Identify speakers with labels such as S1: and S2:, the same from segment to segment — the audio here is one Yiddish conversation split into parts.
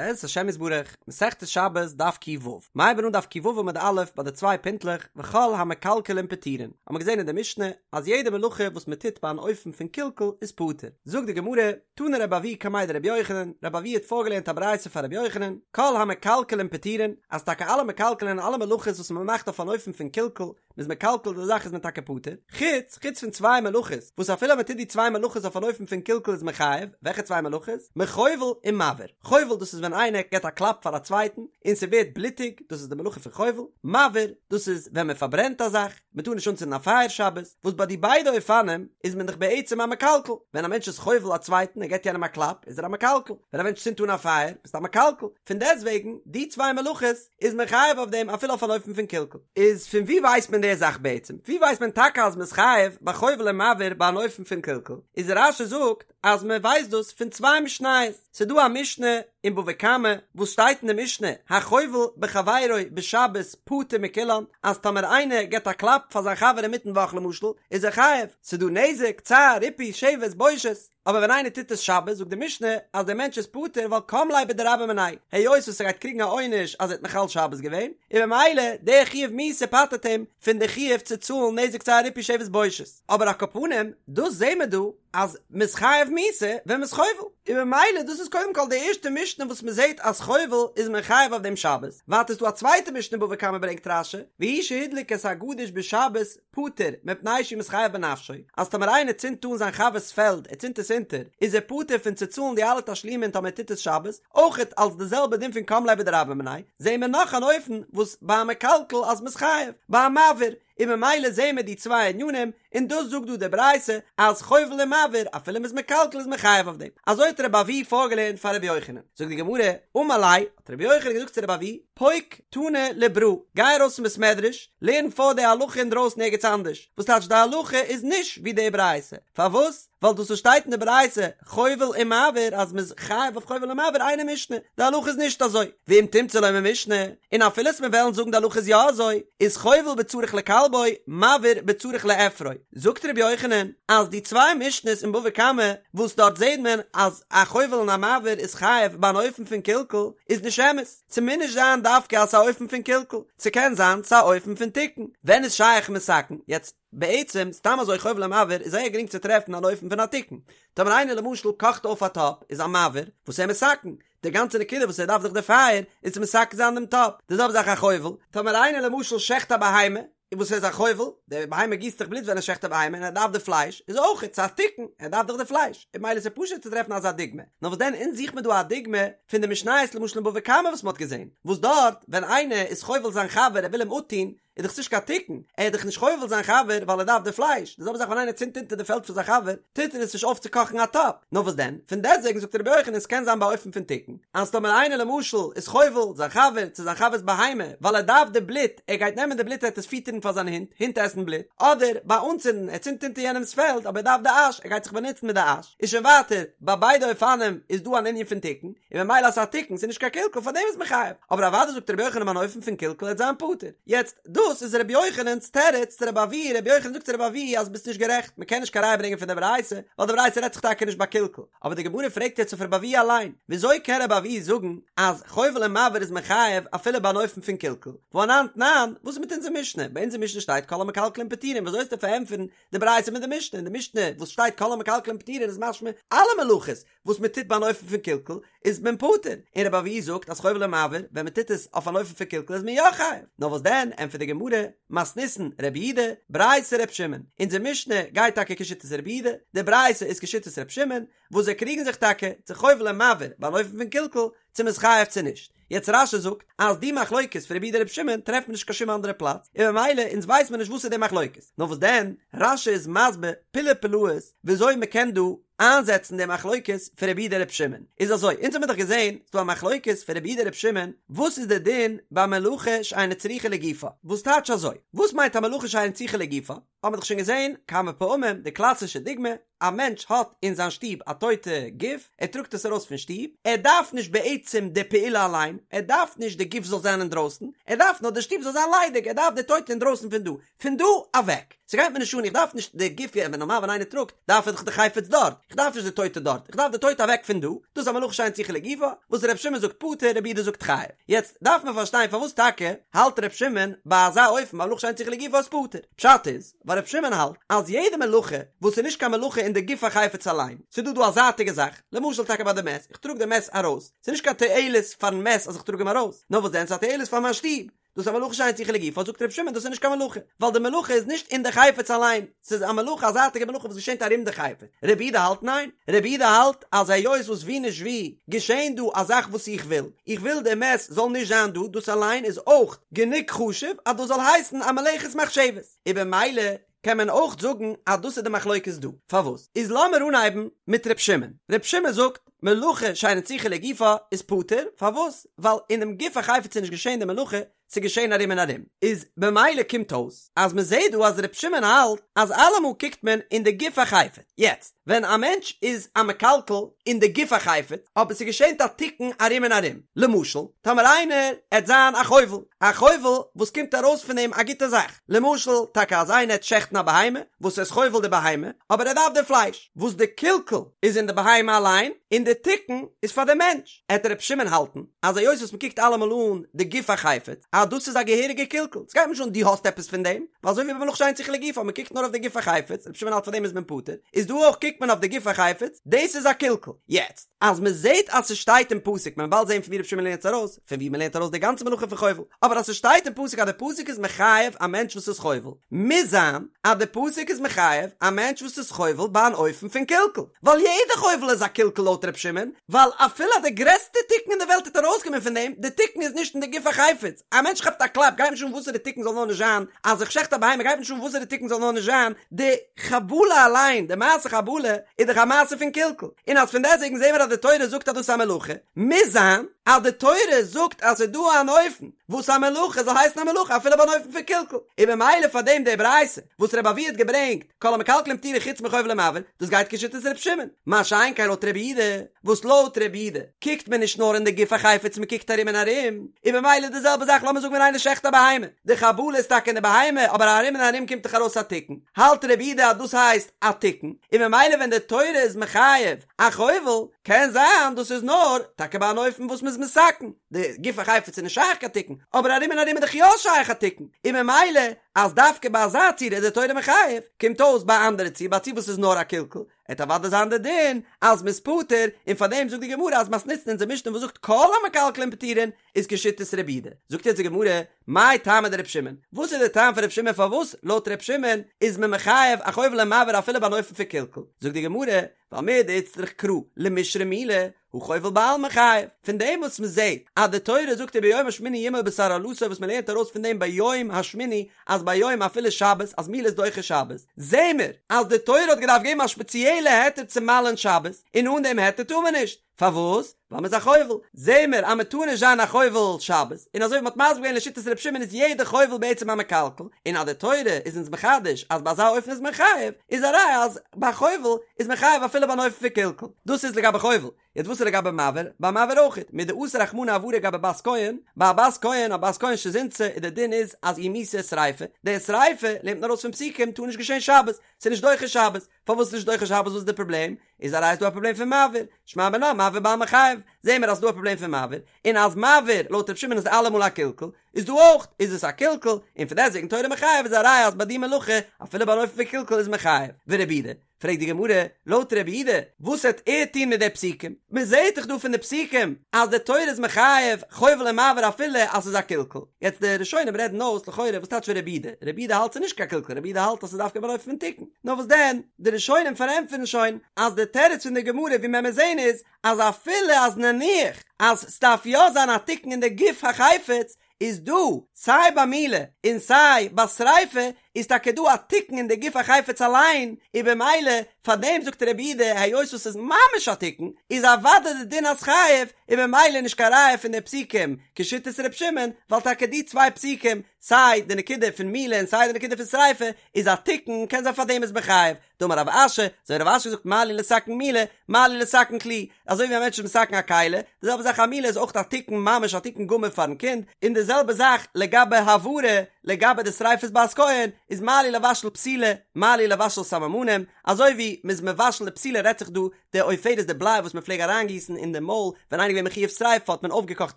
S1: בעזרת השם יתברך, מסכת שבת דף ק"ו, מ'הייבן אן דף ק"ו עמוד א' ביי די צוויי פינטלעך וכל המקלקלין פטורין, האבן מיר געזען אין די משנה אז יעדע מלאכה וואס מען טוט ביי אן אופן פון קלקול איז פטור, זאגט די גמרא, תנא רבי אבהו קמיה דרבי יוחנן, רבי אבהו האט פארגעלערנט א ברייתא פאר רבי יוחנן, כל המקלקלין פטורין, אז טאקע אלע מקלקלין אלע מלאכות וואס מען מאכט אויף אן אופן פון קלקול, מ'איז מקלקל די זאך איז מען טאקע פטור, חוץ, חוץ פון צוויי מלאכות, וואס אפילו מען טוט די צוויי מלאכות אויף אן אופן פון קלקול איז מען חייב, וועלכע צוויי מלאכות? מחובל און מבעיר. חובל דאס איז ווען איינער געבט א קלאפ פאר א צווייטן און ס'ווערט בלוטיג, דאס איז די מלאכה פון חובל, מבעיר, דאס איז ווען מען פארברענט א זאך, מען טאר נישט אנצינדן א פייער שבת, וואס ביי די ביידע אופנים איז מען דאך בעצם א מקלקל, ווען א מענטש איז חובל א צווייטן ער געבט יענעם א קלאפ איז ער א מקלקל, ווען א מענטש צינדט אן א פייער ביסטו א מקלקל, פון דעסטוועגן די צוויי מלאכות איז מען חייב אויף דעם אפילו אויף אן אופן פון קלקול. איז פון ווי ווייסט מען די זאך בעצם? ווי ווייסט מען טאקע אז מען איז חייב ביי חובל און מבעיר ביי אן אופן פון קלקול? איז רש"י זאגט אז מען ווייסט דאס פון צוויי משניות, ס'איז דא א משנה אין בבא קמא וואס שטייט אין די משנה החובל בחבירו בשבת פטור מכולן אז טאמער איינער געבט א קלאפ פאר זיין חבר אינמיטן וואך למשל איז ער חייב, ס'איז דא נזק, צער, ריפוי, שבת, בושת. אבער ווען איינער טוט עס שבת זאגט די משנה אז דער מענטש איז פטור ווייל קם ליה בדרבה מיניה, היות וואס ער גייט קריגן א עונש אז ער האט מחלל שבת געווען, און במילא דער חיוב מיתה פטר'ט אים פון די חיוב צו צאלן נזק צער ריפוי שבת בושת. אבער על כל פנים, דאס זעהן מיר דא אז מ'איז חייב מיתה ווען מ'איז חובל, און במילא דאס איז קודם כל די ערשטע משנה וואס מ'זעהט אז חובל איז מען חייב אויף דעם שבת, ווייטער איז דא א צווייטע משנה בבא קמא ברענגט רש"י, והוא שהדליק את הגדיש בשבת פטור, מפני שהוא מתחייב בנפשו, אז טאמער איינער צינדט אן זיין חבר'ס פעלד, ער צינדט עס אונטער, איז ער פטור פון צו צאלן די אלע תשלומין טאמער ער טוט עס שבת, אויכעט אלס די זעלבע דין פון קם ליה בדרבה מיניה, זעהן מיר נאך אן אופן וואס ביי א מקלקל אז מ'איז חייב, ביי א מבעיר, און ממילא זעהן מיר די צוויי ענינים, און דאס זאגט דא די ברייתא אז חובל און מבעיר אפילו מ'איז מקלקל איז מען חייב אויף דעם, אזוי האט רבי אבהו פארגעלערנט פאר רבי יוחנן, זאגט די גמרא, אמר ליה, האט רבי יוחנן געזאגט צו רבי אבהו, פוק תני לברא, גיי ארויס פון בית מדרש, לערן פאר די הלכה אינדרויסן ערגעץ אנדערש, וואס טייטש די הלכה איז נישט ווי די ברייתא, פארוואס? ווייל דאס וואס שטייט אין די ברייתא חובל ומבעיר אז מ'איז חייב אויף חובל ומבעיר אינה משנה, די הלכה איז נישט אזוי, ואם תמצא לומר משנה, און אפילו אז מיר וועלן זאגן די הלכה איז יא אזוי, איז חובל בצריך לכלבו, מבעיר בצריך לאפרו. זאגט ר' יוחנן אז די צוויי משנות אין בבא קמא וואס דארט זעט מען אז א חובל און א מבעיר איז חייב ביי אן אופן פון קלקול איז נישט אמת, ס'מוז נישט זיין דווקא אז ס'איז א אופן פון קלקול, ס'קען זיין ס'איז א אופן פון תיקון. ווען איז שייך מתקן? יעצט בעצם סתם אזוי חובל ומבעיר איז זייער גרינג צו טרעפן אן אופן פון א תיקון. טאמער איינער למשל קאכט אויף א טאפ איז א מבעיר וואס ער מתקן, די גאנצע נקודה וואס ער דארף דאך די פייער איז צו מתקן זיין דעם טאפ. די זעלבע זאך א חובל, טאמער איינער למשל שעכט א בהמה, און וואס איז א חובל? די בהמה גיסט דאך בלוט ווען ער שעכט א בהמה און ער דארף די פלייש, איז אויך ס'איז א תיקון, ער דארף דאך די פלייש, און ממילא איז עס פשוט צו טרעפן אזא דוגמא. נאר וואס דען אונז זוכט מען דא א דוגמא פון די משניות למשל אין בבא קמא וואס מען האט געזען, וואס דארט ווען איינער איז חובל זיין חבר ער וויל אים אפטון, איז דאך נישט קיין תיקון, ער איז דאך נישט חובל זיין חבר ווייל ער דארף די פלייש, די זעלבע זאך ווען איינער צינדט אונטער די פעלד פון זיין חבר, טוט ער עס נישט אויף צו קאכן א טאפ, נאר וואס דען, פון דעסטוועגן זאגט רבי יוחנן עס קען זיין באופן פון תיקון, אז טאמער איינער למשל איז חובל זיין חבר צו זיין חבר'ס בהמה ווייל ער דארף די בלוט, ער גייט נעמען די בלוט ער וועט עס פיטערן פאר זיין הונט, הינט עסן בלוט, אדער ביי אנצינדן, ער צינדט אונטער יענעמ'ס פעלד אבער ער דארף די אש, ער גייט זיך באנוצן מיט די אש, איז שוין ווייטער, ביי ביידע אופנים איז דא אן ענין פון תיקון, און ממילא אז ס'איז א תיקון, ס'איז נישט קיין קלקול, פאר דעם איז מען חייב, אבער אוודאי זאגט רבי יוחנן אן אופן פון קלקול עט זיין פטור. יעצט, דאס איז רבי יוחנן'ס תירוץ צו רבי אבהו, רבי יוחנן זאגט צו רבי אבהו אז ביסט נישט גערעכט, מ'קען נישט קיין ראיה ברענגען פון די ברייתא, ווייל די ברייתא רעדט זיך טאקע נישט ביי קלקול. אבער די גמרא פרעגט יעצט אויף רבי אבהו אליין, וויאזוי קען רבי אבהו זאגן אז חובל און מבעיר איז מען חייב אפילו ביי אן אופן פון קלקול? והא אנן תנן, וואס איז מיט אונזער משנה? ביי אונזער משנה שטייט כל המקלקלין פטורין, וויאזוי וועסטו פארענטפערן די ברייתא מיט די משנה? אין די משנה וואס שטייט כל המקלקלין פטורין איז משמע אלע מלאכות וואס מען טוט ביי אן אופן פון קלקול איז מען פטור, און רבי אבהו זאגט אז חובל ומבעיר ווען מען טוט עס אויף אן אופן פון קלקול איז מען יא חייב, נאר וואס דען ענטפערט די גמרא, מתניתין רבי יהודה, ברייתא ר' שמעון, אונזער משנה גייט טאקע כשיטת רבי יהודה, די ברייתא איז כשיטת ר' שמעון, וואס זיי קריגן זיך טאקע צו חובל און מבעיר ביי אן אופן פון קלקול צו מען איז חייב צו נישט. יעצט רש"י זאגט אז די מחלוקת פון רבי יהודה רבי שמעון טרעפט מען נישט קיין שום אנדערע פלאץ, און ממילא אונז ווייסט מען נישט וואס איז די מחלוקת, נאר וואס דען רש"י איז מסביר פלאי פלאות וויאזוי מען קען דא איינזעצן די מחלוקת פון רבי יהודה רבי שמעון, איז אזוי אונז האמיר דאך געזען ס'דא א מחלוקת פון רבי יהודה רבי שמעון וואס איז די דין ביי מלאכה שאינה צריכה לגופה, וואס טייטש אזוי? וואס מיינט א מלאכה שאינה צריכה לגופה? האבן מיר דאך שוין געזען כמה פעמים די קלאסישע דוגמא, א מענטש האט אין זיין שטוב א טויטע גוף, ער טראגט עס ארויס פון שטוב, ער דארף נישט בעצם די פעולה אליין, ער דארף נישט די גוף זאל זיין אינדרויסן, ער דארף נאר די שטוב זאל זיין ליידיג, ער דארף די טויטע אינדרויסן פון דא, פון דא אוועק, ס'גייט מיר נישט אן, איך דארף נישט די גוף, ווען נארמאל ווען איינער טראגט, דארף ער דאך די חפץ דארט, איך דארף נישט די טויטע דארט, איך דארף די טויטע אוועק פון דא, דאס איז א מלאכה שאין צריכה לגופה, וואס ר' שמעון זאגט פטור, רבי יהודה זאגט חייב. יעצט דארף מען פארשטיין פארוואס טאקע האלט ר' שמעון ביי אזא אופן ביי מלאכה שאין צריכה לגופה איז פטור. פשט איז, ווייל ר' שמעון האלט אז יעדע מלאכה וואס איז נישט קיין מלאכה אין די גוף החפץ אליין, ס'איז דא דא א זייטיגע זאך, למשל טאקע ביי די מת, איך טראג די מת ארויס, ס'איז נישט קיין תועלת פארן מת אז איך טראג אים ארויס, נאר וואס דען ס'איז א תועלת פאר מיין שטוב, דאס איז א מלאכה שאין צריכה לגופה, זאגט ר' שמעון דאס איז נישט קיין מלאכה, ווייל די מלאכה איז נישט אין די חפץ אליין, ס'איז א מלאכה א זייטיגע מלאכה וואס געשענט ארום די חפץ, רבי יהודה האלט ניין, רבי יהודה האלט אז היות וואס ווי נישט ווי געשענט דא א זאך וואס איך וויל, איך וויל די מת זאל נישט זיין דא, דאס אליין איז אויך גענוג חשוב אז דאס זאל הייסן א מלאכת מחשבת, און במילא קען מען אויך זאגן אז דאס איז די מחלוקת דא. פארוואס? איז לאמיר אנהייבן מיט ר' שמעון. ר' שמעון זאגט, מלאכה שאינה צריכה לגופה איז פטור, פארוואס? ווייל אינעם גוף החפץ איז נישט געשען די מלאכה, ס'איז געשען ארום און ארום. איז במילא קומט אויס אז מ'זעט דא אז ר' שמעון האלט אז אלעמאל קוקט מען אין די גוף החפץ. יעצט, ווען א מענטש איז א מקלקל אין די גוף החפץ, אבער ס'געשענט א תיקון ארום און ארום, למשל, טאמער איינער עט זיין א חובל, א חובל וואס קומט ארויס פון אים א גוטע זאך, למשל, טאקע אז איינער עט שעכטן א בהמה, וואס ער איז חובל די בהמה, אבער ער דארף די פלייש, וואס די קלקול איז אין די בהמה אליין, און די תיקון איז פאר די מענטש, עט ר' שמעון האלטן, אז היות וואס מ'קוקט אלעמאל אן די גוף החפץ, אז דאס איז א געהעריגע קלקול, ס'גייט מיר נישט אן דו האסט עפעס פון דעם, ווייל אזוי ווי ביי מלאכה שאין צריכה לגופה, מ'קוקט נאר אויף די גוף החפץ, ר' שמעון האלט פאר דעם איז מען פטור, איז דא אויך קוקט מען אויף די גוף החפץ, דאס איז א קלקול. יעצט, אז מ'זעט אז ס'שטייט אין פסוק, מען וועט באלד זען פון ווי ר' שמעון לערנט עס ארויס, פון ווי מ'לערנט ארויס די גאנצע מלאכה פון חובל, אבער אז ס'שטייט אין פסוק אז די פסוק איז מחייב א מענטש וואס איז חובל, מוז זיין אז די פסוק איז מחייב א מענטש וואס איז חובל ביי אן אופן פון קלקול, ווייל יעדע חובל איז א קלקול לויט ר' שמעון, ווייל אפילו אז די גרעסטע תיקון אין די וועלט וועט ארויסקומען פון דעם, די תיקון איז נישט אין די גוף החפץ, א מענטש כאפט א קלאפ גייט נישט אן וואסערע תיקון זאל נאר נישט זיין, אז איך שעכט א בהמה גייט נישט אן וואסערע תיקון זאל נאר נישט זיין, די חבלה אליין, די מעשה חבלה, איז דאך א מעשה פון קלקול, און אז פון דעסטוועגן זעהן מיר אז די תורה זאגט אז דאס איז א מלאכה, מוז זיין אז די תורה זאגט אז ס'איז דא אן אופן וואס א מלאכה זאל הייסן א מלאכה אפילו ביי אן אופן פון קלקול, און במילא פאר דעם די ברייתא וואס רבי אבהו האט געברענגט כל המקלקלין פטורין חוץ מחובל ומבעיר, דאס גייט כשיטת ר' שמעון, מה שאין כן לויט רבי יהודה, וואס לויט רבי יהודה קוקט מען נישט נאר אין די גוף החפץ מען קוקט ארום און ארום, און במילא די זעלבע זאך לאמיר זאגן ווען איינער שעכט א בהמה, די חבלה איז טאקע אין די בהמה אבער ארום און ארום קומט דאך ארויס א תיקון, האלט רבי יהודה אז דאס הייסט א תיקון, און במילא ווען די תורה איז מחייב א חובל, קען זיין דאס איז נאר טאקע ביי אן אופן וואס מ'איז מתקן, די גוף החפץ איז נישט שייך קיין תיקון, אבער ארום און ארום איז דאך יא שייך א תיקון, און ממילא אז דווקא ביי אזא צורה איז די תורה מחייב, קומט אויס ביי א אנדערע ציור, ביי א ציור וואס איז נאר א קלקול, עט אוודאי זיין די דין אז מ'איז פטור, און פאר דעם זאגט די גמרא אז מתניתין אונזער משנה וואס זאגט כל המקלקלין פטורין איז כשיטת רבי יהודה. זאגט יעצט די גמרא, מאי טעמא דרבי שמעון? וואס איז די טעם פון רבי שמעון פארוואס לויט רבי שמעון איז מען מחייב א חובל ומבעיר אפילו ביי אן אופן פון קלקול? זאגט די גמרא, ווייל מדאיצטריך קרא למישרי מילה, הא חובל בעלמא חייב. פון דעם וואס מען זעט אז די תורה זאגט וביום השמיני ימול בשר ערלתו וואס מען לערנט ארויס פון דעם ביום השמיני אז ביום אפילו שבת אז מילה איז דוחה שבת, זעהן מיר אז די תורה האט געדארפט געבן א שפעציעלע היתר צו מל'ען שבת, און אן דעם היתר טאר מען נישט. פארוואס? ווייל מ'איז א חובל. זעהן מיר אז מ'טאר נישט זיין א חובל שבת, און אזוי ווי מ'האט מסביר געווען לשיטת ר' שמעון איז יעדע חובל בעצם א מקלקל, און אז די תורה איז אונז מחדש אז ביי אזא אופן איז מען חייב, איז א ראיה אז ביי חובל איז מען חייב אפילו ביי אן אופן פון קלקול. דאס איז לגבי חובל. יעצט וואס איז לגבי מבעיר? ביי מבעיר אויכעט, מדאסר רחמנא הבערה גבי בת כהן, ביי א בת כהן, א בת כהן שזינתה, איז די דין איז אז איר מיתה איז שריפה, די שריפה, לערנט מען ארויס פון פסוקים, טאר נישט געשען שבת, ס'איז נישט דוחה שבת. פארוואס איז נישט דוחה שבת וואס איז די פראבלעם? איז א ראיה ס'דא א פראבלעם פון מבעיר, שמע מינה מבעיר בעלמא חייב, זעהן מיר אז ס'דא א פראבלעם פון מבעיר, און אז מבעיר לויט ר' שמעון איז אלעמאל א קלקול, איז דא אויך איז עס א קלקול, און פון דעסטוועגן תורה מחייב איז א ראיה אז ביי די מלאכה אפילו ביי אן אופן פון קלקול איז מען חייב, ורבי יהודה, פרעגט די גמרא, לויט רבי יהודה, וואס העט ער טון מיט די פסוקים? מען זעהט דאך דא פון די פסוקים אז די תורה איז מחייב חובל ומבעיר אפילו אז ס'איז א קלקול, יעצט די ראשונים רעדן אויס לכאורה וואס טייטש רבי יהודה, רבי יהודה האלט ס'איז נישט קיין קלקול, רבי יהודה האלט אז ס'איז דווקא ביי אן אופן פון תיקון, נאר וואס דען, די ראשונים פארענטפערן שוין אז די תירוץ פון די גמרא ווי מען מיר זעהן איז אז אפילו אז נניח אז ס'דארף יא זיין א תיקון אין די גוף החפץ איז דא סיי ביי מילה און סיי ביי שריפה איז טאקע דא א תיקון אין די גוף החפץ אליין און במילא פאר דעם זאגט רבי יהודה היות וואס ס'איז ממש א תיקון איז אוודאי די דין אז חייב און במילא נישט קיין ראיה פון די פסוקים כשיטת ר' שמעון ווייל טאקע די צוויי פסוקים סיי די נקודה פון מילה און סיי די נקודה פון שריפה איז א תיקון קען זיין פאר דעם איז מען חייב דאמר רב אשי, אזוי רב אשי זאגט מה לי לתקן מילה, מה לי לתקן כלי, אזוי ווי א מענטש איז מתקן א כלי, די זעלבע זאך א מילה איז אויך א תיקון ממש א תיקון גמור פארן קינד, און די זעלבע זאך לגבי הבערה, לגבי די שריפת בת כהן, איז מה לי לבשל פתילה, מה לי לבשל סממנים, אזוי ווי מ'איז מבשל די פתילה רעדט זיך דא די עופרת די בליי וואס מ'פלעג אריינגיסן אין די מויל ווען איינער איז געווען מחויב שריפה האט מען אויפגעקאכט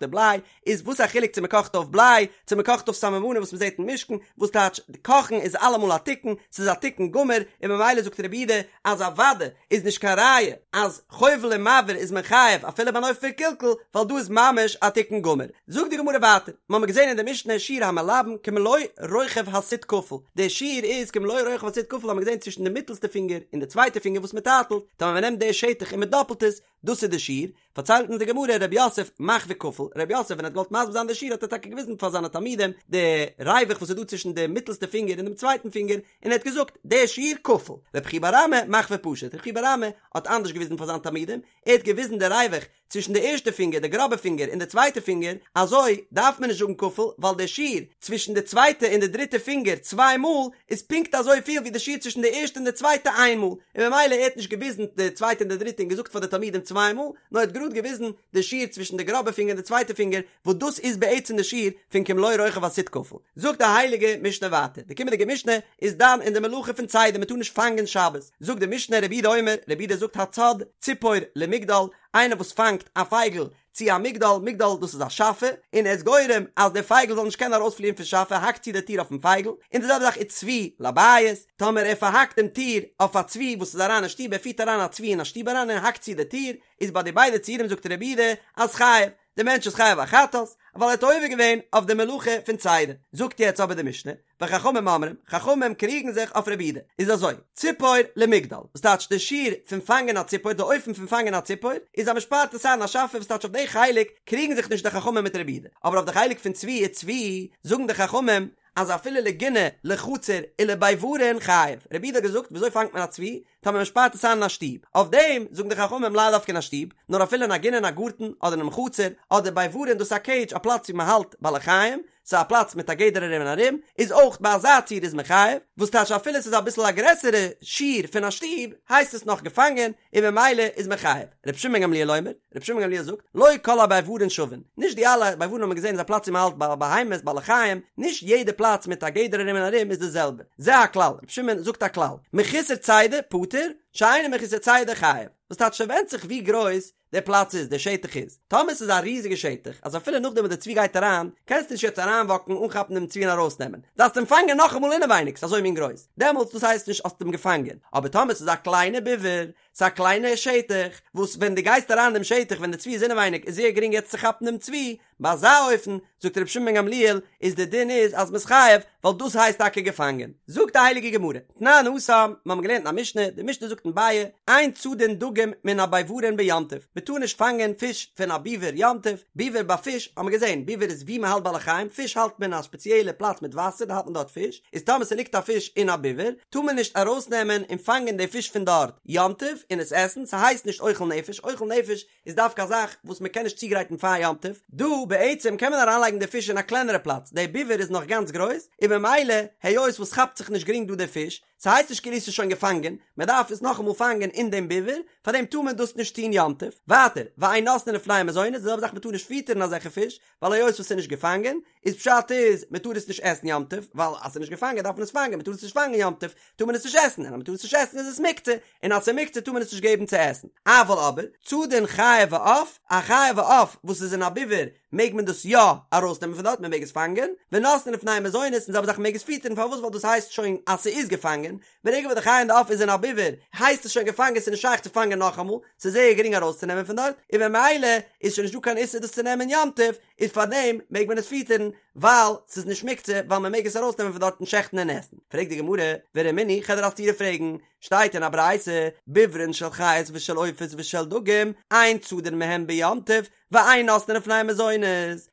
S1: די בליי, איז וואס א חילוק צו מ'קאכט אויף בליי צו מ'קאכט אויף סממנים וואס מ'זעט אין משכן, וואס טייטש קאכן איז אלעמאל א תיקון, ס'איז א תיקון גמור, און ממילא זאגט רבי יהודה אז אוודאי איז נישט קיין ראיה אז חובל ומבעיר איז מען חייב אפילו ביי אן אופן פון קלקול, ווייל דא איז ממש א תיקון גמור. זאגט די גמרא ווייטער, מ'האמיר געזען אין די משנה שיעור המלבן כמלוא רוחב הסיט כפול, די שיעור איז כמלוא רוחב הסיט כפול האמיר געזען צווישן די מיטעלסטע פינגער און די צווייטע פינגער וואס מ'טייטלט, טאמער מ'נעמט די שטח און מ'דאפלט עס, דאס איז די שיעור, פארציילט אונז די גמרא רב יוסף מחוי כפול, רב יוסף ווען ער האט געוואלט מסביר זיין די שיעור האט ער טאקע געוויזן פאר זיינע תלמידים די ריווח וואס איז דא צווישן די מיטלסטע פינגער און דעם צווייטן פינגער, און ער האט געזאגט די שיעור כפול, רב חייא בר אמי מחוי פשוט, רב חייא בר אמי האט אנדערש געוויזן פאר זיינע תלמידים, ער האט געוויזן די ריווח צווישן די ערשטע פינגער די גראבע פינגער און די צווייטע פינגער, אזוי דארף מען נישט זאגן כפול ווייל די שיעור צווישן די צווייטע און די דריטע פינגער צוויי מאל איז פונקט אזוי פיל ווי די שיעור צווישן די ערשטע און די צווייטע איין מאל, און ממילא ער האט נישט געוויזן די צווייטע און די דריטע און געזאגט פאר די תלמידים צוויי מאל, נאר ער האט גראד געוויזן די שיעור צווישן די גראבע פינגער און די צווייטע פינגער, וואס דאס איז בעצם די שיעור פון כמלוא רוחב הסיט כפול. זאגט די הייליגע משנה ווייטער, די קומענדיגע משנה איז דן אין די מלאכה פון צידה, מען טאר נישט פאנגען שבת, זאגט די משנה רבי יהודה אומר, רבי יהודה זאגט הצד ציפור למגדל, איינער וואס פאנגט א פייגל צו א מגדל, מגדל דאס איז א שאפע, און ער איז גורם אז דער פייגל זאל נישט קענען ארויספליען פון שאפע, האקט צו די טיר אויפן פייגל, און די זעלבע זאך וצבי לבית, טאמער ער פארהאקט דעם טיר אויף א צבי וואס איז אריין אין שטוב, ער פירט אריין א צבי אין א שטוב אריין און האקט צו די טיר, איז ביי די ביידע ציורים זאגט רבי יהודה אז חייב, דער מענטש איז חייב א חטאת, ווייל ער האט עובר געווען אויף די מלאכה פון צידה. זאגט יעצט אבער די משנה, וחכמים אומרים, חכמים קריגן זיך אויף רבי יהודה, איז אזוי, ציפור למגדל, וואס טייטש די שיעור פון פאנגען א ציפור, די אופן פון פאנגען א ציפור, איז אז מ'שפארט עס איין אין א שאפע, וואס טייטש אויף די חלק קריגן זיך נישט די חכמים מיט רבי יהודה, אבער אויף די חלק פון צבי וצבי, זאגן די חכמים, אז אפילו לגינה, לחצר, ולביברין חייב, רבי יהודה האט געזאגט, וויאזוי פאנגט מען א צבי? טאמער מען שפארט עס איין אין א שטוב, אויף דעם זאגן די חכמים לאו דווקא אין א שטוב, נאר אפילו אין א גינה אין א גארטן, אדער אינעם חצר, אדער ביברין דאס איז א קעידזש א פלאץ ווי מען האלט בעלי חיים, ס'איז א פלאץ מיט א גדר ארום און ארום, איז אויך ביי אזא ציור איז מען חייב, וואס טייטש אפילו ס'איז אביסל א גרעסערע שיעור פון א שטוב, הייסט עס נאך געפאנגען, און ממילא איז מען חייב. רבי שמעון בן גמליאל אומר, רבי שמעון בן גמליאל זאגט, לא כל הביברין שווין, נישט די אלע ביברין האט מען געזען איז א פלאץ ווי מען האלט בעלי בהמות, בעלי חיים, נישט יעדע פלאץ מיט א גדר ארום און ארום איז די זעלבע. זה הכלל, רבי שמעון זאגט א כלל, מחוסר צידה פטור, שאינו מחוסר צידה חייב, וואס טייטש ס'ווענדט זיך ווי גרויס דער פלאץ איז, דער שטח איז, טאמער ס'איז א ריזיגע שטח, אז אפילו נאכדעם וואס די צבי גייט אריין, קענסטו נישט יעצט אריינוואקן אנכאפן דעם צבי און ארויסנעמען, דארפסט אים פאנגען נאכאמאל אינעווייניג, ס'איז אזוי מין גרויס, דעמאלטס דאס הייסט נישט האסט אים געפאנגען, אבער טאמער ס'איז א קליינע ביבר, ס'איז א קליינע שטח, וואס ווען דו גייסט אריין אין דעם שטח ווען די צבי איז אינעווייניג איז זייער גרינג יעצט צו כאפן דעם צבי, ביי אזא אופן, זאגט רבי שמעון בן גמליאל, איז די דין איז אז מ'איז חייב, ווייל דאס הייסט טאקע געפאנגען. זאגט די הייליגע גמרא, תנן התם, מיר האבן געלערנט אין א משנה, די משנה זאגט אין ביעא, אין צדין דגים מן הביברין ביום טוב, מ'טאר נישט פאנגען פיש פון א ביבער יום טוב, ביבער ביי פיש האבן מיר געזען, ביבער איז ווי מ'האלט בעלי חיים, פיש האלט מען אין א ספעציעלע פלאץ מיט וואסער, דא האלט מען דארט פיש, איז טאמער ס'ליגט א פיש אין א ביבער, טאר מען נישט ארויסנעמען און פאנגען די פיש פון דארט יום טוב און עס עסן, ס'הייסט נישט אוכל נפש, אוכל נפש איז דווקא א זאך וואס מען קען נישט צוגרייטן פאר יום טוב, דא בעצם קען מען אריינלייגן די פיש אין א קלענערע פלאץ, די ביבער איז נאך גאנץ גרויס, און ממילא היות וואס כאפט זיך נישט גרינג דא די פיש, ס'הייסט נישט כאילו ס'איז שוין געפאנגען, מען דארף עס נאכאמאל פאנגען אין דעם ביבער, פארדעם טאר מען דאס נישט טון יום טוב. ווייטער, ואין נותנין לפניהם מזונות, די זעלבע זאך מען טאר נישט פיטערן אזעלכע פיש, ווייל היות וואס ס'איז נישט געפאנגען, איז פשט איז מען טאר עס נישט עסן יום טוב, ווייל אז ס'איז נישט געפאנגען דארף מען עס פאנגען, מען טאר עס נישט פאנגען יום טוב, טאר מען עס נישט עסן, און אז מען טאר עס נישט עסן איז עס מוקצה, און אז ס'איז מוקצה טאר מען עס נישט געבן צו עסן. אבל אבער, צדין חיה ועוף, א חיה ועוף וואס איז אין א ביבער, מעג מען דאס יא ארויסנעמען פון דארט, מען מעג עס פאנגען, ונותנין לפניהם מזונות, און זעלבע זאך מען מעג עס פיטערן, פארוואס ווייל דאס הייסט שוין אז ס'איז געפאנגען, ברגע וואס די חיה און די עוף איז אין א ביבער, הייסט עס שוין געפאנגען, ס'איז נישט שייך צו פאנגען נאכאמאל, ס'איז זייער גרינג ארויסצונעמען פון דארט, און ממילא איז שוין נישטא קיין איסור דאס צו נעמען יום טוב, איז פארדעם מעג מען עס פיטערן, ווייל ס'איז נישט מוקצה, ווייל מען מעג עס ארויסנעמען פון דארט און שעכטן און עסן. פרעגט די גמרא, ורמינהי, כ'וועל דיר א סתירה פרעגן, שטייט אין א ברייתא, ביברין של חיות ושל עופות ושל דגים, אין צדין מהם ביום טוב, ואין נותנין לפניהם מזונות,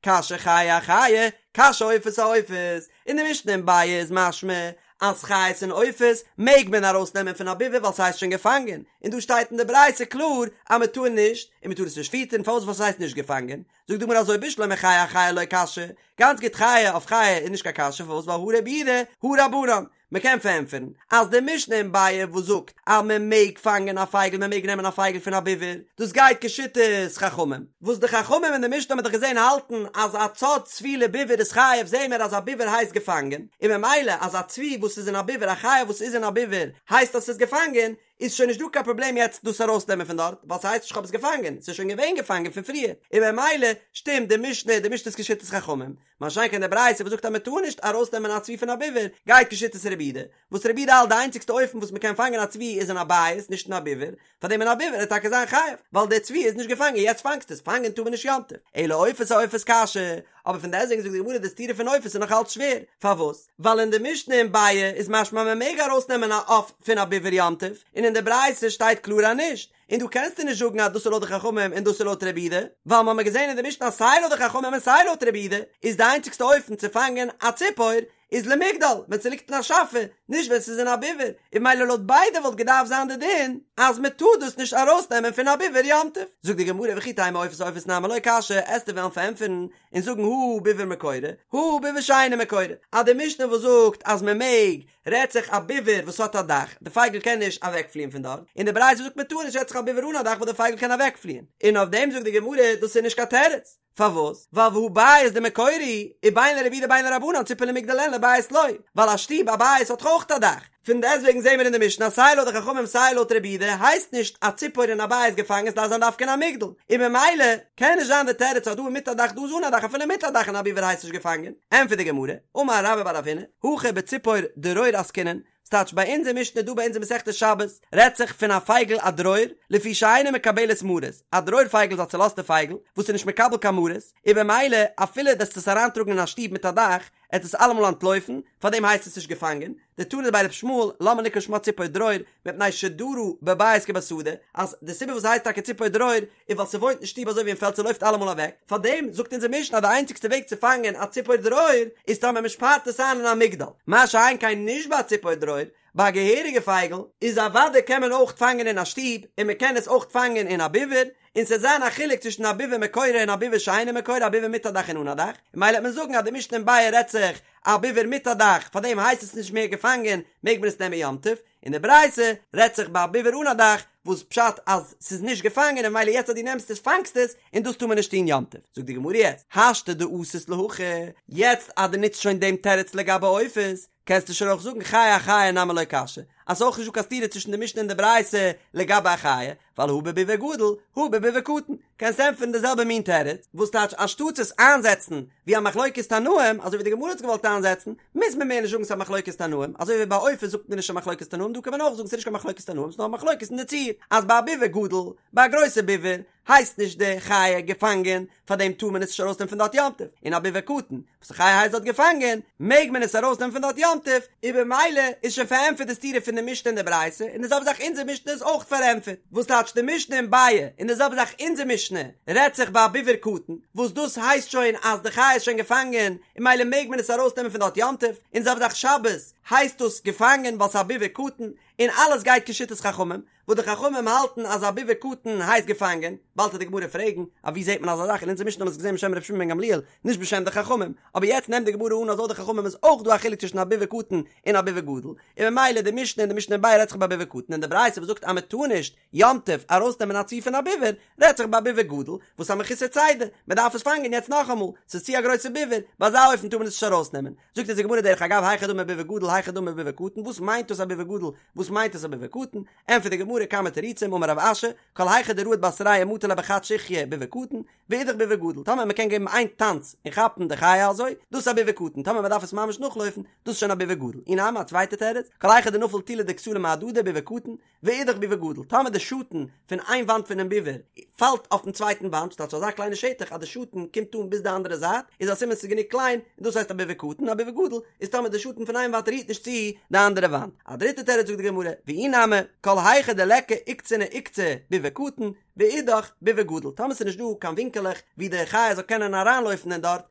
S1: קשיא חיה אחיה, קשיא עופות אעופות, אין די משנה אין ביעא איז משמע אז חיות און עופות מעג מען ארויס נעמען פון א ביבער ווייל ס'הייסט שוין געפאנגען, און דא שטייט אין די ברייתא קלאר אז מען טאר נישט, און מען טאר עס נישט פיטערן פארוואס ווייל ס'הייסט נישט געפאנגען, זאגט די גמרא אזוי בשלמא חיה אחיה לא קשיא, גאנץ גוט חיה אויף חיה איז נישט קיין קשיא פארוואס ווייל הא רבי יהודה הא רבנן. מ'קען פארענטפערן אז די משנה אין ביעא וואס זאגט אז מען מעג פאנגען א פייגל מען מעג נעמען א פייגל פון א ביבער דאס גייט כשיטת חכמים וואס די חכמים אין די משנה האט מען דאך געזען האלטן אז א צד צבי לביבער איז חייב זעהן מיר אז א ביבער הייסט געפאנגען און ממילא אז א צבי וואס איז אין א ביבער א חיה וואס איז אין א ביבער הייסט אז ס'איז געפאנגען איז שוין נישט דא קיין פראבלעם יעצט דאס ארויסנעמען פון דארט ווייל ס'הייסט נישט כ'האב עס געפאנגען ס'איז שוין געווען געפאנגען פון פריער און ממילא שטימט די משנה די משנה איז כשיטת חכמים מה שאין כן די ברייתא וואס זאגט אז מ'טאר נישט ארויסנעמען א צבי פון א ביבער גייט כשיטת רבי יהודה וואס רבי יהודה האלט די איינציגסטע אופן וואס מ'קען פאנגען א צבי איז אין א בית נישט אין א ביבער פארדעם אין א ביבער וועט טאקע זיין חייב ווייל די צבי איז נישט געפאנגען יעצט פאנגסטו עס פאנגען טאר מען נישט יום טוב אלא עופות אעופות קשיא אבער פון דעסטוועגן זאגט די גמרא די סתירה פון עופות איז נאך אלץ שווער פארוואס ווייל אין די משנה אין ביעא איז משמע מען מעג ארויסנעמען א עוף פון א ביבער יום טוב און אין די ברייתא שטייט קלאר אז נישט און דא קענסטו נישט זאגן אז דאס איז לויט די חכמים און דאס איז לויט רבי יהודה, ווייל מ'האמיר געזען אין די משנה אז סיי לויט די חכמים און סיי לויט רבי יהודה איז די איינציגסטע אופן צו פאנגען א ציפור איז למגדל ווען ס'ליגט אין א שאפע, נישט ווען ס'איז אין א ביבער, און ממילא לויט ביידע וואלט געדארפט זיין די דין אז מ'טאר דאס נישט ארויסנעמען פון א ביבער יום טוב. זאגט די גמרא וכי תימא עופות אעופות נמי לא קשיא, עסטו וועלן פארענטפערן און זאגן הא ביבער מקורה, הא ביבער שאינו מקורה, אז די משנה וואס זאגט אז מ'מעג רעדט זיך א ביבער וואס האט א דאך, די פייגל קען נישט אוועקפליען פון דארט, און די ברייתא זאגט מען טאר נישט רעדט זיך א ביבער אן א דאך וואס די פייגל קען אוועקפליען, און אויף דעם זאגט די גמרא דאס איז נישט קיין תירוץ, פארוואס? ווייל והא בית דמקורה הוא, ובין לרבי יהודה בין לרבנן ציפור למגדל אין לבית לא, ווייל א שטוב א בית האט דאך אויך א דאך, פון דעסטוועגן זעהן מיר אין די משנה אז סיי לויט די חכמים סיי לויט רבי יהודה הייסט נישט א ציפור אין א בית געפאנגען ס'דארף זיין דווקא אין א מגדל, און ממילא קען נישט זיין די תירוץ אז דא איז מיט א דאך דא איז אן א דאך אפילו מיט א דאך אין א ביבער הייסט נישט געפאנגען, ענטפערט די גמרא, אמר רבה בר רב הונא, הכא בציפור דרור עסקינן, ס'טייטש ביי אונזער משנה דא ביי אונזער מסכת שבת רעדט זיך פון א פייגל א דרור, לפי שאינה מקבלת מרות, א דרור פייגל איז א צולאזטע פייגל וואס איז נישט מקבל קיין מרות, און במילא אפילו דו עסט עס אריינטראגן אין א שטוב מיט א דאך, עט עס אלעמאל אנטלויפן, פארדעם הייסט עס נישט געפאנגען, דתנא דבי ר' ישמעאל, למה נקרא שמה ציפור דרור, מפני שדרה בבית כבשדה, אז די סיבה וואס ס'הייסט טאקע ציפור דרור, איז ווייל ס'וואוינט אין שטוב אזוי ווי אין פעלד ס'לויפט אלעמאל אוועק, פארדעם זאגט אונזער משנה אז די איינציגסטע וועג צו פאנגען א ציפור דרור, איז טאמער מ'שפארט עס איין אין א מגדל, מה שאין כן נישט ביי א ציפור דרור, ביי א געהעריגע פייגל, איז אוודאי קען מען אויך פאנגען אין א שטוב, און מ'קען עס אויך פאנגען אין א ביווער, און ס'עט זיין א חילוק צווישן א ביווער מקורה און א ביווער שאינו מקורה, א ביווער מיט א דאך און אן א דאך, און ממילא וועט מען זאגן אז די משנה אין ביעא רעדט זיך א ביווער מיט א דאך, פארדעם הייסט עס נישט מער געפאנגען, מעג מען עס נעמען יום טוב, און די ברייתא רעדט זיך ביי א ביווער אן א דאך, וואס פשט אז ס'איז נישט געפאנגען און ממילא יעצט אז דו נעמסט עס פאנגסט עס, און דאס טאר מען נישט טון יום טוב. זאגט די גמרא יעצט, השתא דאתית להכי, יעצט אז דו נוצט שוין דעם תירוץ לגבי עופות, קענסטו שוין אויך זאגן חיה אחיה נמי לא קשיא, אז ס'איז אויך נישט דא קיין סתירה צווישן די משנה און די ברייתא לגבי א חיה, ווייל הא בביבר גדול, הא בביבר קטן, קענסט ענטפערן די זעלבע מין תירוץ, וואס טייטש אנשטאטס עס איינזעצן ווי א מחלוקת תנאים, אזוי ווי די גמרא האט עס געוואלט איינזעצן, מוז מען מער נישט זאגן ס'איז א מחלוקת תנאים, אזוי ווי ביי עופות זאגט מען נישט א מחלוקת תנאים, דא קען מען אויך זאגן ס'איז נישט קיין מחלוקת תנאים, ס'איז נאר א מחלוקת אין די ציור, אז ביי א ביבר גדול, ביי א גרויסע ביבר, הייסט נישט די חיה געפאנגען, פארדעם טאר מען עס נישט ארויסנעמען פון דארט יום טוב, און א ביבר קטן, וואס די חיה הייסט דארט געפאנגען, מעג מען עס ארויסנעמען פון דארט יום טוב, און במילא איז שוין פארענטפערט די סתירה פון די משנה און די ברייתא, און די זעלבע זאך אונזער משנה איז אויך פארענטפערט, וואס טייטש די משנה אין ביעא, און די זעלבע זאך אונזער משנה רעדט זיך ביי א ביבר קטן, וואס דאס הייסט שוין אז די חיה איז שוין געפאנגען, און ממילא מעג מען עס ארויסנעמען פון דארט יום טוב, און די זעלבע זאך שבת הייסט דאס געפאנגען ווייל ס'איז א ביבר קטן, און אלעס גייט כשיטת חכמים, וואס די חכמים האלטן אז א ביבר קטן הייסט געפאנגען, באלד וועט די גמרא פרעגן, א ווי זעט מען אזא זאך, אין אונזער משנה האט מען עס געזען בשם ר' שמעון בן גמליאל, נישט בשם די חכמים, אבער יעצט נעמט די גמרא אן אז לויט די חכמים איז אויך דא א חילוק צווישן א ביבר קטן און א ביבר גדול, און ממילא די משנה און די משנה אין ביעא רעדט זיך ביי א ביבר קטן און די ברייתא וואס זאגט אז מען טאר נישט יום טוב ארויסנעמען א צבי פון א ביבר, רעדט זיך ביי א ביבר גדול, וואס א מחוסר צידה, מען דארף עס פאנגען יעצט נאכאמאל, ס'איז צו א גרויסע ביבר, ביי אזא אופן טאר מען עס נישט ארויסנעמען. זאגט אונז די גמרא דרך אגב היכי דמי ביבר גדול היכי דמי ביבר קטן וואס מיינט דאס א ביבר גדול וואס מיינט דאס א ביבר קטן ענטפערט די גמרא כמה תירוצים אמר רב אשי כל היכא דרהיט בתריה ומטי ליה בחד שיחיא ביבר קטן ואידך ביבר גדול טאמער מען קען געבן איין טאנץ און כאפן די חיה אזוי דאס איז א ביבר קטן טאמער מען דארף עס ממש נאכלויפן דאס איז שוין א ביבר גדול אי נמי א צווייטע תירוץ כל היכא דנפיל טולא דכסלא מהדדי ביבר קטן ואידך ביבר גדול, טאמער די שאטן פון איין וואנט פונעם ביבר פאלט אויפן צווייטן וואנט, ס'טייטש אזא קליינע שטח אז די שאטן קומט אן ביז די אנדערע זייט, איז א סימן ס'איז גענוג קליין, און דאס הייסט א ביבר קטן, א ביבר גדול איז טאמער די שאטן פון איין וואנט רירט נישט צו די אנדערע וואנט. א דריטע תירוץ זאגט די גמרא, ואי נמי, כל היכא דליכא עוקצנא עוקצא ביבר קטן, ואידך ביבוא גדול, טאמער ס'איז נישט דא קיין ווינקעלעך ווי די חיה זאל קענען אריינלויפן אין דארט,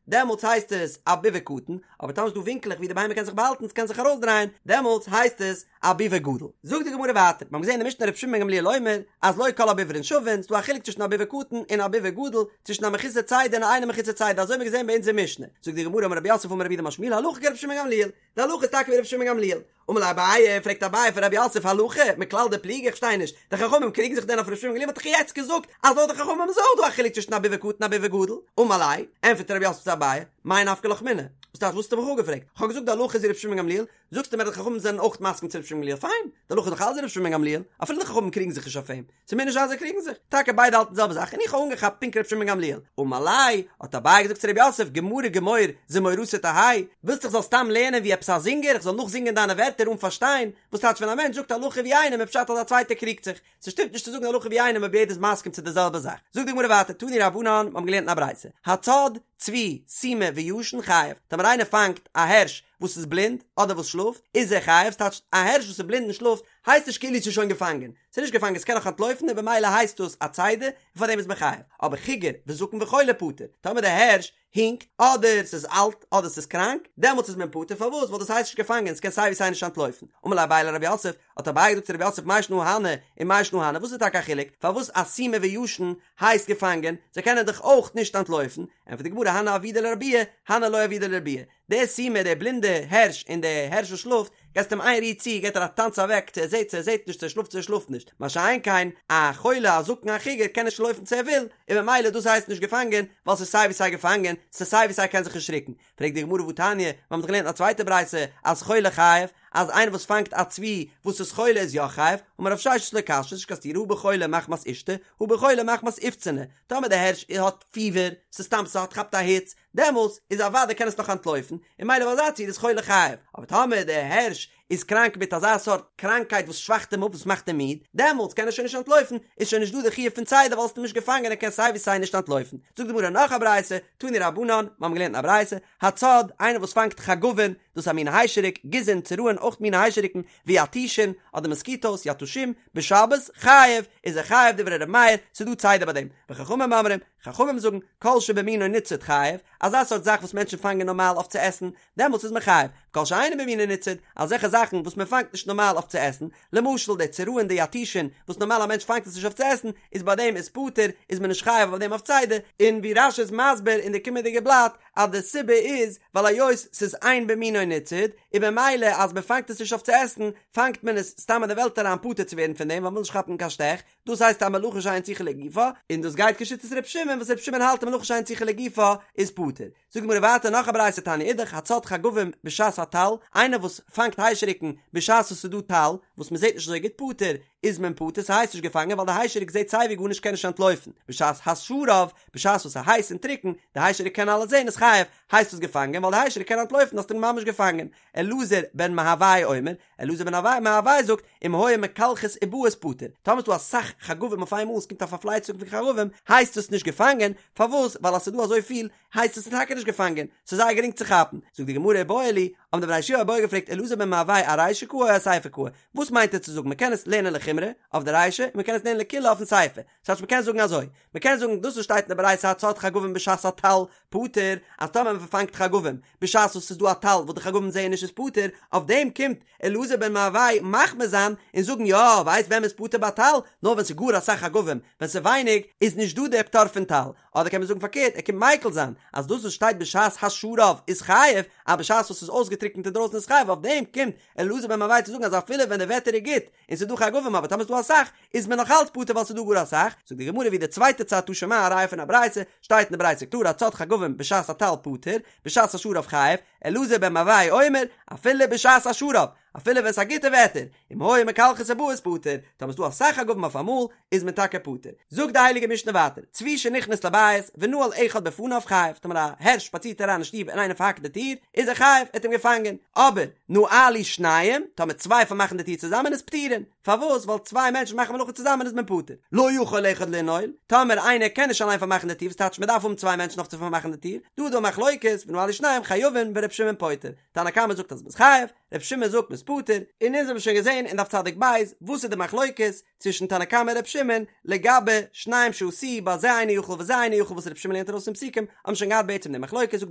S1: דעמאלטס הייסט עס א ביבוא קטן, אבער טאמער ס'איז דא ווינקעלעך ווי די בהמה קען זיך באהאלטן, ס'קען זיך ארויסדרייען, דעמאלטס הייסט עס א ביבוא גדול. זאגט די גמרא ווייטער, מיר האבן געזען אין די משנה רבי שמעון בן גמליאל אומר, אז לא כל הביברין שווין, ס'דא א חילוק צווישן א ביבוא קטן און א ביבוא גדול, צווישן א מחוסר צידה און א אינו מחוסר צידה, אזוי האבן מיר געזען ביי אונזער משנה. זאגט די גמרא אמר רב יוסף אמר רב יהודה אמר שמואל הלכה כרבי שמעון בן גמליאל, די הלכה איז טאקע ווי רבי שמעון בן גמליאל. אמר ליה אביי, פרעגט אביי פון רב יוסף הלכה, מכלל דפליגי איך פארשטיי נישט, די חכמים קריגן זיך דען אויף רבי שמעון בן גמליאל מ'האט דאך יעצט געזאגט אז לויט די חכמים איז אויך דא א חילוק צווישן א ביבוא קטן און א ביבוא גדול, אמר ליה, ענטפערט רב יוסף צו אביי, מאי נפקא לך מינה, וואס טייטש וואס האסטו מיך אפגעפרעגט, איך האב געזאגט די הלכה איז ווי רבי שמעון בן גמליאל, זאגסטו מיר אז די חכמים זענען אויך מסכים צו רבי שמעון בן גמליאל, פיין, די הלכה איז דאך אלץ ווי רבי שמעון בן גמליאל, אפילו די חכמים קריגן זיך נישט אויף אים, ס'מוז נישט זיין זיי קריגן זיך, טאקע ביידע האלטן די זעלבע זאך און איך האב אנגעכאפט פונקט רבי שמעון בן גמליאל, אמר ליה, האט אביי געזאגט צו רב יוסף, גמרא גמור זמורתא תהא, ווילסט איך זאל סתם לערנען ווי עפעס א זינגער, איך זאל נאכזינגען דיינע ווערטער אן פארשטיין, וואס טייטש ווען א מענטש זאגט הלכה ווי איינעם איז פשט אז א צווייטער קריגט זיך, ס'שטימט נישט צו זאגן הלכה ווי איינעם אויב יעדער איז מסכים צו די זעלבע זאך. זאגט די גמרא ווייטער, תנו רבנן, מיר האבן געלערנט אין א ברייתא, הצד, צבי, סומא וישן חייב, טאמער איינער פאנגט א הערש וואס איז בלינד אדער וואס שלאפט, איז ער חייב, ס'טייטש א הערש וואס איז בלינד און שלאפט הייסט נישט כאילו ס'איז שוין געפאנגען, ס'איז נישט געפאנגען ס'קען נאך אנטלויפן און במילא הייסט דאס א צידה און פארדעם איז מען חייב, אבער חיגר וזקן וחולה פטור, טאמער די הערש הינקט, אדער ס'איז אלט, אדער ס'איז קראנק, דעמאלטס איז מען פטור, פארוואס? ווייל דאס הייסט נישט געפאנגען, ס'קען סיי ווי סיי נישט אנטלויפן. אמר ליה אביי לרב יוסף, האט אביי געזאגט צו רב יוסף מאי שנא הני ומאי שנא הני, וואס איז טאקע א חילוק, פארוואס א סומא וישן הייסט געפאנגען, זיי קענען דאך אויך נישט אנטלויפן, ענטפערט די גמרא הני עבידי לרבויי, הני לא עבידי לרבויי, דער סומא, דער בלינדער הערש און דער הערש וואס שלאפט, געסט אים איין ריר צו, געט ער א טאנץ אוועק, צו ער זעט צו ער זעט נישט, צו ער שלאפט צו ער שלאפט נישט. מה שאין כן, א חולה, א זקן, א חיגר, קען נישט לויפן צו ער וויל, און ממילא דאס הייסט נישט געפאנגען, ווייל ס'איז סיי ווי סיי געפאנגען, ס'איז סיי ווי סיי קען זיך נישט רוקן. פרעגט די גמרא והתניא, מיר האבן דאך געלערנט אין א צווייטע ברייתא, אז חולה חייב, אז איינער וואס פאנגט א צבי וואס איז חולה איז יא חייב, אמר רב ששת לא קשיא, ס'נישט קיין סתירה, הא בחולה מחמת אישתא, הא בחולה מחמת אופצני, טאמער דער הערש האט פיבער, ס'איז סתם ס'האט כאפט א היץ, דעמאלס איז אוודאי קען עס נאך אנטלויפן, און ממילא ביי אזא ציור איז חולה חייב, אבער טאמער דער הערש איז קראנק מיט אזא סארט קראנקייט וואס שוואכט אים אפ וואס מאכט אים מיד, דעמאלס קען ער שוין נישט אנטלויפן, איז שוין נישט דא די חיוב פון צידה ווייל האסט אים נישט געפאנגען ער קען סיי ווי סיי נישט אנטלויפן. זאגט די גמרא נאך א ברייתא, תנו רבנן, מיר האבן געלערנט אין א ברייתא, הצד, איינער וואס פאנגט חגבין, דאס איז א מין היישעריק, גיזין, צרעין, אויך מיני היישעריקן, ויתושין, אדער מאסקיטאוס, יתושים, בשבת, חייב, איז ער חייב דברי ר' מאיר, ס'איז דא צידה ביי דעם, וחכמים אומרים, חכמים זאגן, כל שבמינו ניצוד חייב, אזא סארט זאך וואס מענטשן פאנגען נארמאל אויף צו עסן, דעמאלטס איז מען חייב, כל שאינו במינו ניצוד, אזעלכע זאכן וואס מען פאנגט נישט נארמאל אויף צו עסן, למשל די צרעין די יתושין, וואס נארמאל א מענטש פאנגט עס נישט אויף צו עסן, איז ביי דעם איז פטור, איז מען נישט חייב אויף דעם אויף צידה, און ווי רש"י איז מסביר אין די קומענדיגע בלאט, אז די סיבה איז, ווייל היות ס'איז אין במינו ניצוד, און במילא אז מען פאנגט עס נישט אויף צו עסן, פאנגט מען עס סתם אין די וועלט אריין פטור צו ווערן פון דעם, ווייל מ'וויל נישט כאפן קיין שטעך, דאס הייסט א מלאכה שאין צריכה לגופה, און דאס גייט כשיטת ר' שמעון וואס ר' שמעון האלט א מלאכה שאין צריכה לגופה איז פטור. זאגט די גמרא ווייטער נאך א ברייתא תניא אידך הצד חגבים בשעת הטל, איינער וואס פאנגט היישעריקן בשעת וואס ס'איז דא טל, וואס מ'זעט נישט אזוי גוט פטור, איז מען פטור ס'הייסט נישט געפאנגען ווייל די היישעריק זעט סייווי גארנישט קען נישט אנטלויפן, בשעת השרב, בשעת וואס ס'איז הייס און טרוקן, די היישעריק קען אלעס זען איז חייב, הייסט עס געפאנגען ווייל די היישעריק קען אנטלויפן האסט אים ממש געפאנגען. אלעזר בן מהווי אומר, אלעזר בן מהווי זאגט, אם היו מקלחות ובאות פטור, טאמער ס'דא אסאך חגבים אויף איינמאל און ס'קומט א פארפלייצונג פון חגבים, הייסט עס נישט געפאנגען, פארוואס? ווייל אז ס'דא אזויפיל, הייסט עס טאקע נישט געפאנגען, ס'איז זייער גרינג צו כאפן. זאגט די גמרא איבעיא להו, האבן די בני ישיבה א בעיא געפרעגט אלעזר בן מהווי ארישא קאי או אסיפא קאי, וואס מיינט ער צו זאגן, מ'קען עס לערנען לחומרא, אויף די רישא, און מ'קען עס לערנען לקולא אויפן סיפא, ס'טייטש מ'קען זאגן אזוי, מ'קען זאגן דאס וואס שטייט אין די ברייתא הצד חגבים בשעת הטל פטור, אז טאמער מ'פארפאנגט חגבים בשעת וואס ס'איז דא א טל וואס די חגבים זעען נישט איז פטור, אויף דעם קומט אלעזר בן מהווי מחמיר זיין און זאגן יא, ווייסט ווען מ'איז פטור ביי טל? נאר ווען ס'איז גאר אסאך חגבים, ווען ס'איז ווייניג איז נישט דא דער פטור פון טל, אדער קען מען זאגן פארקערט ער קומט מיקל זיין אז דאס וואס שטייט בשעת השרב איז חייב, אז בשעת וואס ס'איז אויסגעטריקנט אינדרויסן איז חייב, אויף דעם קומט אלעזר בן מהווי צו זאגן אז אפילו ווען די וועטער איז גוט און ס'איז דא חגבים אבער טאמער ס'איז דא אסאך איז מען נאך אלץ פטור ווייל ס'איז דא גאר אסאך, זאגט די גמרא ווי די צווייטע צד תא שמע א ראיה פון א ברייתא, שטייט אין די ברייתא קלאר הצד חגבים בשעת הטל פטור, בשעת השרב חייב, אלעזר בן מהווי אומר, אפילו בשעת השרב, אפילו ווען ס'איז א גוטע וועטער, אם היו מקלחות ובאות פטור, טאמער ס'איז דא אסאך חגבים אויף אמאל, איז מען טאקע פטור. זאגט די הייליגע משנה ווייטער, צבי שנכנס לבית ונעל אחד בפניו חייב, טאמער א הערש שפאצירט אריין אין שטוב און איינער פארהאקט די טיר, איז ער חייב, ער האט אים געפאנגען, אבער נעלו שניים, טאמער צוויי פארמאכן די טיר צוזאמען איז פטורין, פארוואס? ווייל צוויי מענטשן מאכן מלאכה צוזאמען איז מען פטור. לא יכול אחד לנעול, טאמער איינער קען נישט אליין פארמאכן די טיר, וואס טייטש מען דארף האבן צוויי מענטשן אויף צו פארמאכן די טיר, דא איז דא א מחלוקת, ונעלו שניים חייבין ור' שמעון פוטר, תנא קמא זאגט אז מ'איז חייב, ר' שמעון זאגט מ'איז פטור, און אונז האבן שוין געזען אין דף צדיק ב' וואס איז די מחלוקת צווישן תנא קמא און ר' שמעון לגבי שניים שעשאוהו ביי זה אינו יכול וזה אינו יכול וואס ר' שמעון לערנט ארויס פון פסוקים, האבן שוין געהאט בעצם די מחלוקת, זאגט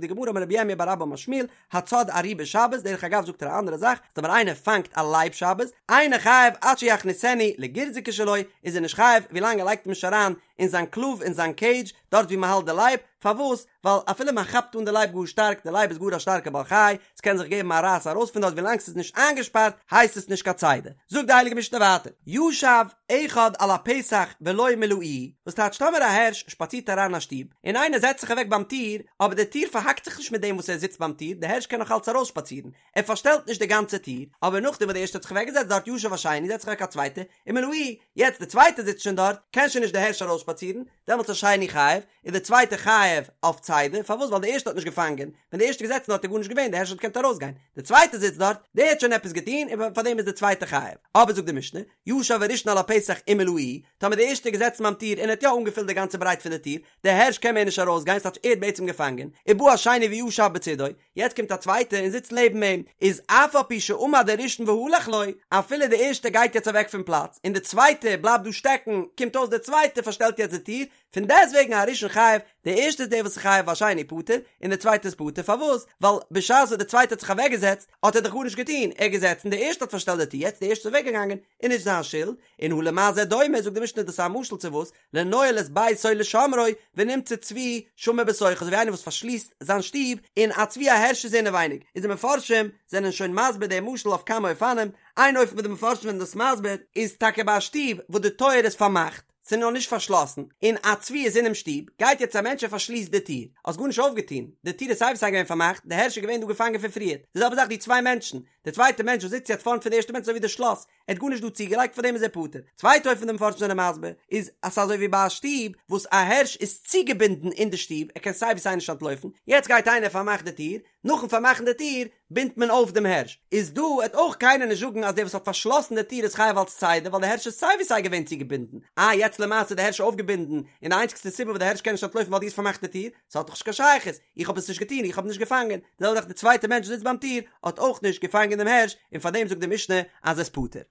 S1: די גמרא אמר רב ירמיה בר אבא אמר שמואל, הצד ארי בשבת, דרך אגב זאגט ער א אנדערע זאך, אז טאמער איינער פאנגט א לייב שבת, אינו חייב עד שיכניסנו לגורזקי שלו, איז ער נישט חייב ווילאנג ער לייגט אים נישט אריין אין זיין קלוב אין זיין קעידזש, דארט ווי מען האלט די לייב, פארוואס? ווייל אפילו מען כאפט אן די לייב גאר שטארק, די לייב איז גאר א שטארקע בעל חי, ס'קען זיך געבן א רייס ארויס פון דארט ווילאנג ס'איז נישט איינגעשפארט הייסט עס נישט קיין צידה. זאגט די הייליגע משנה ווייטער, ישב אחד על הפתח ולא מילאוהו, וואס טייטש טאמער א הערש שפאצירט אריין אין א שטוב, און איינער זעצט זיך אוועק ביים טיר, אבער די טיר פארהאקט זיך נישט מיט דעם וואס ער זיצט ביים טיר, די הערש קען נאך אלץ ארויסשפאצירן, ער פארשטעלט נישט די גאנצע טיר, אבער נאכדעם וואס די ערשטע האט זיך אוועקגעזעצט דארט ישב השני זעצט זיך אוועק א צווייטער, ומילאוהו, יעצט די צווייטע זיצט שוין דארט, קען שוין נישט די הערש ארויסשפאצירן, דעמאלטס השני חייב, איז די צווייטע חייב אויף צידה, פארוואס ווייל די ערשטע האט נישט געפאנגען, ווען די ערשטע איז געזעצן דארט איז גארנישט געווען, די הערש האט געקענט ארויסגיין, די צווייטע זיצט דארט, דער האט שוין עפעס געטון, און פארדעם איז די צווייטע חייב. אבער זאגט די משנה, ישב הראשון על הפתח ומילאוהו, טאמער די ערשטע איז געזעצן ביים טיר און ער האט יא אנגעפילט די גאנצע ברייט פון די טיר, די הערש קען מער נישט ארויסגיין, ס'טייטש ער האט בעצם געפאנגען, ובא השני וישב בצידו, יעצט קומט א צווייטער און זיצט לעבן אים, איז אף על פי שעמד הראשון והלך לו, אפילו די ערשטע גייט יעצט אוועק פון פלאץ, און די צווייטע בלייבט דא שטעקן, קומט אויס די צווייטע פארשטעלט יעצט די טיר, פון דעסטוועגן הראשון חייב, די ערשטע איז דער וואס איז חייב והשני פטור, און די צווייטע איז פטור, פארוואס? ווייל בשעת וואס די צווייטע האט זיך אוועקגעזעצט, האט ער דאך גארנישט געטון, ער איז געזעצן, די ערשטע האט פארשטעלט די טיר, יעצט די ערשטע איז אוועקגעגאנגען, איז נישט זיין שולד, און הא למה זה דומה, זאגט די משנה דאס איז א משל צו וואס? לנועל את ביתו לשומרו, ונמצא צבי שמור בתוכו, אזוי ווי איינער וואס פארשליסט זיין שטוב, און א צבי א הערש איז אינעווייניג, איז די מפרשים זענען שוין מסביר דעם משל אויף כמה אופנים, איין אופן וואס די מפרשים זענען דאס מסביר, איז טאקע ביי א שטוב וואס די טויער איז פארמאכט, ס'איז נאר נישט פארשלאסן, און א צבי איז אינעם שטוב, גייט יעצט א מענטש און פארשליסט די טיר, האסט גארנישט אויפגעטון, די טיר איז סיי ווי סיי געווען פארמאכט, די הערש איז געווען דא געפאנגען פון פריער, די זעלבע זאך די צוויי מענטשן, די צווייטע מענטש וואס זיצט יעצט פארנט פון די ערשטע מענטש אזוי ווי די שלאס, ער האט גארנישט דא צוגעלייגט פאר דעם איז ער פטור. צווייטע אופן די מפרשים זענען מסביר איז אז ס'איז אזוי ווי ביי א שטוב וואס א הערש איז צוגעבינדן אין די שטוב ער קען סיי ווי סיי נישט אנטלויפן, יעצט גייט איינער פארמאכט די טיר, נאכן פארמאכן די טיר בינדט מען אויף דעם הערש, איז דא עט אויך קיינער נישט זאגן אז דער וואס האט פארשלאסן די טיר איז חייב אלס צידה ווייל די הערש איז סיי ווי סיי געווען צוגעבינדן, אה יעצט למעשה איז די הערש אויפגעבינדן און די איינציגסטע סיבה וואס די הערש קען נישט אנטלויפן ווייל דו האסט פארמאכט די טיר, ס'האט דאך נישט קיין שייכות, איך האב עס נישט געטון, איך האב נישט געפאנגען, די זעלבע זאך די צווייטע מענטש וואס זיצט ביים טיר האט אויך נישט געפאנגען דעם הערש, און פאר דעם זאגט די משנה אז ער איז פטור.